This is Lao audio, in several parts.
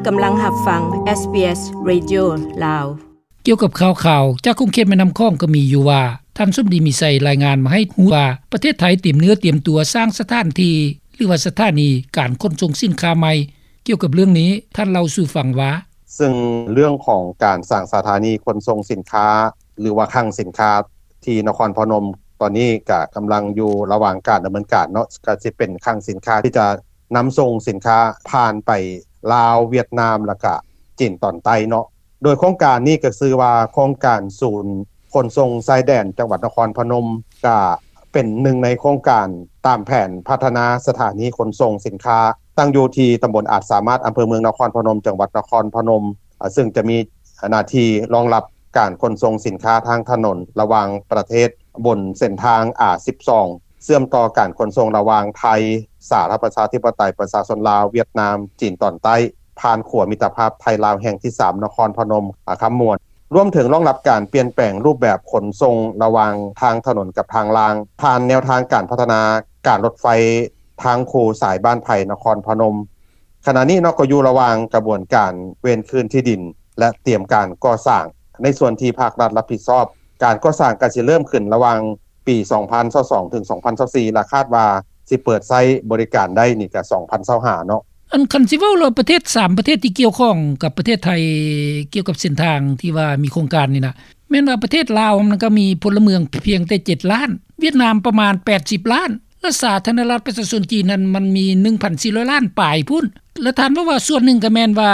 ກຳລັງຮັບຟັງ ເອສບີເອສ ເຣດິໂອ ລາວ. ກ່ຽວກັບຂ່າວໆຈາກຂົງເຂດແມ່ນ້ຳຂອງກໍມີຢູ່ວ່າ ທ່ານສົມດີ ມີໄຊ ລາຍງານມາໃຫ້ຮູ້ວ່າ ປະເທດໄທຕຽມເນື້ອຕຽມຕົວສ້າງສະຖານທີ່ ຫຼືວ່າສະຖານີການຂົນສົ່ງສິນຄ້າໃໝ່. ກ່ຽວກັບເລື່ອງນີ້ ທ່ານເລົ່າສູ່ຟັງວ່າ: ເຊິ່ງເລື່ອງຂອງການສ້າງສະຖານີຂົນສົ່ງສິນຄ້າ ຫຼືວ່າຄັງສິນຄ້າທີ່ນະຄອນພະນົມ ຕອນນີ້ກະກຳລັງຢູ່ລະຫວ່າງການດຳເນີນການເນາະ, ກະຊິເປັນຄັງສິນຄ້າທີ່ຈະນຳສົ່ງສິນຄ້າຜ່ານໄປລາວ, ຫວຽດນາມ ແລ້ວກະຈີນຕອນໃຕ້ເນາະ. ໂດຍໂຄງການນີ້ກະຊື່ວ່າ ໂຄງການສູນຂົນສົ່ງຊາຍແດນຈັງຫວັດນະຄອນພະນົມ ກະເປັນໜຶ່ງໃນໂຄງການຕາມແຜນພັດທະນາສະຖານີຂົນສົ່ງສິນຄ້າ ຕັ້ງຢູ່ທີ່ຕຳບົນອາດສາມາດ ອຳເພີເມືອງນະຄອນພະນົມ ຈັງຫວັດນະຄອນພະນົມ ເຊິ່ງຈະມີໜ້າທີ່ຮອງຮັບການຂົນສົ່ງສິນຄ້າທາງຖະໜົນລະຫວ່າງປະເທດ ບົນເສັ້ນທາງ ອາ ສິບສອງ ເຊື່ອມຕໍ່ການຂົນສົ່ງລະຫວ່າງໄທ ສາທາລະນະລັດປະຊາທິປະໄຕປະຊາຊົນລາວ, ຫວຽດນາມ, ຈີນຕອນໃຕ້ ຜ່ານຂົວມິດຕະພາບໄທ-ລາວແຫ່ງທີສາມ ນະຄອນພະນົມ ອາ ຄຳມ່ວນ, ລວມເຖິງຮອງຮັບການປ່ຽນແປງຮູບແບບຂົນສົ່ງລະຫວ່າງທາງຖະໜົນກັບທາງລາງ ຜ່ານແນວທາງການພັດທະນາການລົດໄຟ ທາງຄູ່ສາຍບ້ານໄຜ່ ນະຄອນພະນົມ. ຂະນະນີ້ເນາະ ກໍຢູ່ລະຫວ່າງກະບວນການເວນຄືນທີ່ດິນ ແລະ ຕຽມການກໍ່ສ້າງ. ໃນສ່ວນທີ່ພາກລັດຮັບຜິດຊອບ ການກໍ່ສ້າງກະຊິເລີ່ມຂຶ້ນລະຫວ່າງປີສອງພັນຊາວສອງ ເຖິງ ສອງພັນຊາວສີ່ ແລະ ຄາດວ່າຊິເປີດໃຊ້ບໍລິການໄດ້ນີ້ກະສອງພັນຊາວຫ້າເນາະ. ອັນຄັນຊິເວົ້າແລ້ວ ປະເທດສາມປະເທດທີ່ກ່ຽວຂ້ອງກັບປະເທດໄທ ກ່ຽວກັບເສັ້ນທາງທີ່ວ່າມີໂຄງການນີ້ນະ ແມ່ນວ່າປະເທດລາວມັນກໍມີພົນລະເມືອງພຽງແຕ່ເຈັດລ້ານ, ຫວຽດນາມປະມານແປດສິບລ້ານ ແລະ ສາທາລະນະລັດປະຊາຊົນຈີນນັ້ນມັນມີໜຶ່ງພັນສີ່ຮ້ອຍລ້ານປາຍພຸ້ນ. ແລະ ທ່ານເວົ້າວ່າສ່ວນໜຶ່ງກໍແມ່ນວ່າ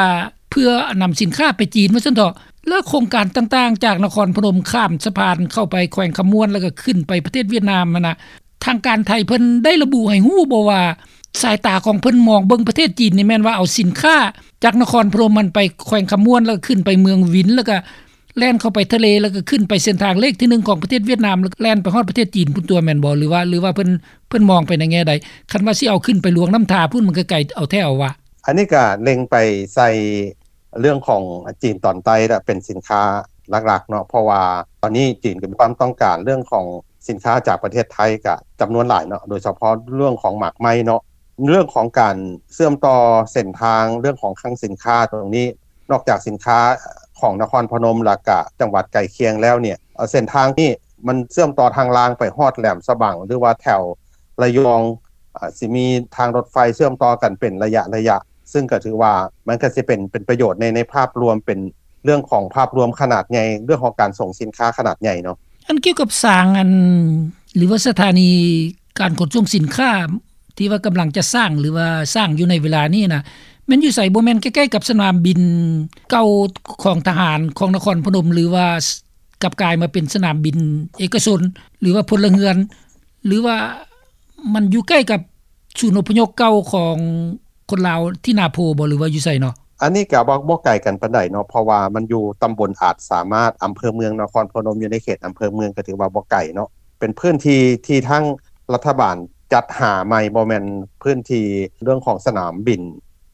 ເພື່ອນຳສິນຄ້າໄປຈີນວ່າຊັ້ນເຖາະ. ແລະ ໂຄງການຕ່າງໆ ຈາກນະຄອນພະນົມຂ້າມສະພານເຂົ້າໄປແຂວງຄຳມ່ວນ ແລ້ວກໍຂຶ້ນໄປປະເທດຫວຽດນາມຫັ້ນນະ ທາງການໄທເພິ່ນໄດ້ລະບຸໃຫ້ຮູ້ບໍ່ວ່າ ສາຍຕາຂອງເພິ່ນມອງເບິ່ງປະເທດຈີນນີ້ແມ່ນວ່າເອົາສິນຄ້າຈາກນະຄອນພະນົມຫັ້ນໄປແຂວງຄຳມ່ວນ ແລ້ວກໍຂຶ້ນໄປເມືອງວິນ ແລ້ວກໍ ແລ່ນເຂົ້າໄປທະເລ ແລ້ວກໍຂຶ້ນໄປເສັ້ນທາງເລກທີໜຶ່ງຂອງປະເທດຫວຽດນາມ ແລ້ວແລ່ນໄປຮອດປະເທດຈີນພຸ້ນຕົວະ ແມ່ນບໍ່? ຫຼືວ່າ ຫຼືວ່າເພິ່ນ ເພິ່ນມອງໄປໃນແງ່ໃດ? ຄັນວ່າຊິເອົາຂຶ້ນໄປຫຼວງນ້ຳທາພຸ້ນ ມັນກໍໄກເອົາແທ້ເອົາວ່າ. ອັນນີ້ກໍເລັງໄປໃສ່ເລື່ອງຂອງຈີນຕອນໃຕ້ລະເປັນສິນຄ້າຫຼັກໆເນາະ, ເພາະວ່າຕອນນີ້ຈີນກໍມີຄວາມຕ້ອງການເລື່ອງຂອງສິນຄ້າຈາກປະເທດໄທກໍຈຳນວນຫຼາຍເນາະ, ໂດຍສະເພາະເລື່ອງຂອງໝາກໄມ້ເນາະ. ເລື່ອງຂອງການເຊື່ອມຕໍ່ເສັ້ນທາງ ເລື່ອງຂອງຄັງສິນຄ້າຕົງນີ້ ນອກຈາກສິນຄ້າຂອງນະຄອນພະນົມ ແລ້ວກະຈັງຫວັດໃກ້ຄຽງແລ້ວເນ່ຍ ເສັ້ນທາງນີ້ມັນເຊື່ອມຕໍ່ທາງລາງໄປຮອດແຫຼມສະບັງ ຫຼືວ່າແຖວລະຍອງ ອາ ຊິມີທາງລົດໄຟເຊື່ອມຕໍ່ກັນເປັນໄລຍະໆ ຊຶ່ງກໍຖືວ່າມັນກໍຊິເປັນ ເປັນປະໂຫຍດໃນ ໃນພາບລວມ ເປັນເລື່ອງຂອງພາບລວມຂະໜາດໃຫຍ່ ເລື່ອງຂອງການສົ່ງສິນຄ້າຂະໜາດໃຫຍ່ເນາະ. ອັນກ່ຽວກັບສ້າງ ອັນ ຫຼືວ່າສະຖານີການຂົນສົ່ງສິນຄ້າ ທີ່ວ່າກຳລັງຈະສ້າງ ຫຼືວ່າສ້າງຢູ່ໃນເວລານີ້ນະ ແມ່ນຢູ່ໃສ? ບໍ່ແມ່ນໃກ້ໆກັບສະໜາມບິນເກົ່າຂອງທະຫານຂອງນະຄອນພະນົມ ຫຼືວ່າກັບກາຍມາເປັນສະໜາມບິນເອກະຊົນ ຫຼືວ່າພົນລະເຮືອນ ຫຼືວ່າມັນຢູ່ໃກ້ກັບສູນອົບພະຍົບເກົ່າຂອງຄົນລາວທີ່ນາໂພບໍ່ ຫຼືວ່າຢູ່ໃສເນາະ? ອັນນີ້ກໍບໍ່ ບໍ່ໄກກັນປານໃດເນາະ ເພາະວ່າມັນຢູ່ຕຳບົນອາດສາມາດ ອຳເພີເມືອງນະຄອນພະນົມ ຢູ່ໃນເຂດອຳເພີເມືອງ ກໍຖືວ່າບໍ່ໄກເນາະ. ເປັນພື້ນທີ່ທີ່ທາງລັດຖະບານຈັດຫາໃໝ່ ບໍ່ແມ່ນພື້ນທີ່ເລື່ອງຂອງສະໜາມບິນ.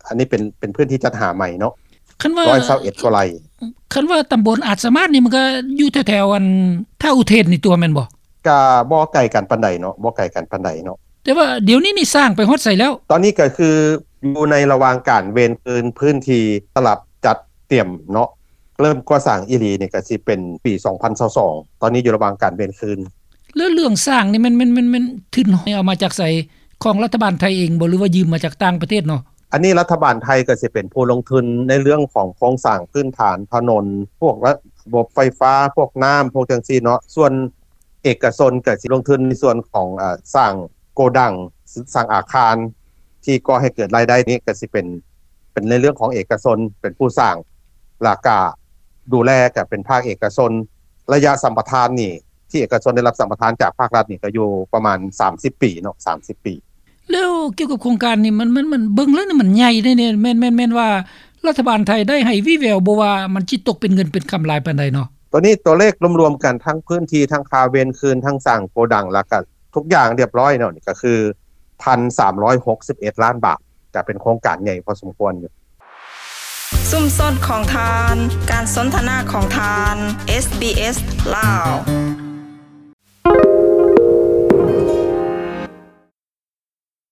ອັນນີ້ເປັນ ເປັນພື້ນທີ່ຈັດຫາໃໝ່ເນາະ. ຄັນວ່າ ຮ້ອຍຊາວເອັດກວ່າໄຮ່. ຄັນວ່າຕຳບົນອາດສາມາດນີ້ ມັນກໍຢູ່ແຖວໆ ອັນ ທ່າອຸເທນນີ້ຕົວະ ແມ່ນບໍ່? ກະບໍ່ໄກກັນປານໃດເນາະ ບໍ່ໄກກັນປານໃດເນາະ. ແຕ່ວ່າດຽວນີ້ນີ້ສ້າງໄປຮອດໃສແລ້ວ? ຕອນນີ້ກໍຄືຢູ່ໃນລະຫວ່າງການເວນຄືນພື້ນທີ່ສຳລັບຈັດຕຽມເນາະ. ເລີ່ມກໍ່ສ້າງອີ່ຫຼີນີ້ກໍຊິເປັນປີສອງພັນຊາວສອງ ຕອນນີ້ຢູ່ລະຫວ່າງການເວນຄືນ. ແລ້ວເລື່ອງສ້າງນີ້ແມ່ນ ແມ່ນ ແມ່ນ ແມ່ນທຶນເອົາມາຈາກໃສ? ຂອງລັດຖະບານໄທເອງບໍ່ ຫຼືວ່າຢືມມາຈາກຕ່າງປະເທດເນາະ? ອັນນີ້ລັດຖະບານໄທກໍຊິເປັນຜູ້ລົງທຶນໃນເລື່ອງຂອງໂຄງສ້າງພື້ນຖານຖະໜົນ ພວກລະບົບໄຟຟ້າ ພວກນ້ຳ ພວກຈັ່ງຊີ້ເນາະ. ສ່ວນເອກະຊົນກໍຊິລົງທຶນໃນສ່ວນຂອງ ອາ ສ້າງໂກດັງ ສ້າງອາຄານ ທີ່ກໍ່ໃຫ້ເກີດລາຍໄດ້ນີ້ກໍຊິເປັນ ເປັນໃນເລື່ອງຂອງເອກະຊົນເປັນຜູ້ສ້າງ ແລ້ວກະດູແລກໍເປັນພາກເອກະຊົນ. ໄລຍະສຳປະທານນີ້ ທີ່ເອກະຊົນໄດ້ຮັບສຳປະທານຈາກພາກລັດນີ້ ກໍຢູ່ປະມານສາມສິບປີເນາະ ສາມສິບປີ. ແລ້ວກ່ຽວກັບໂຄງການນີ້ ມັນ ມັນ ມັນເບິ່ງແລ້ວນີ້ມັນໃຫຍ່ເດ້ ແມ່ນ ແມ່ນ ແມ່ນວ່າລັດຖະບານໄທໄດ້ໃຫ້ວີ່ແວວບໍ່ວ່າມັນຊິຕົກເປັນເງິນເປັນຄຳຫຼາຍປານໃດເນາະ? ຕອນນີ້ຕົວເລກລວມໆກັນ ທັງພື້ນທີ່ ທັງຄ່າເວນຄືນ ທັງສ້າງໂກດັງ ແລ້ວກໍທຸກຢ່າງຮຽບຮ້ອຍເນາະ ນີ້ກໍຄືພັນສາມຮ້ອຍຫົກສິບເອັດລ້ານບາດ ກໍເປັນໂຄງການໃຫຍ່ພໍສົມຄວນຢູ່. ຊຸມຊົນຂອງທ່ານ, ການສົນທະນາຂອງທ່ານ, ເອສບີເອສ ລາວ.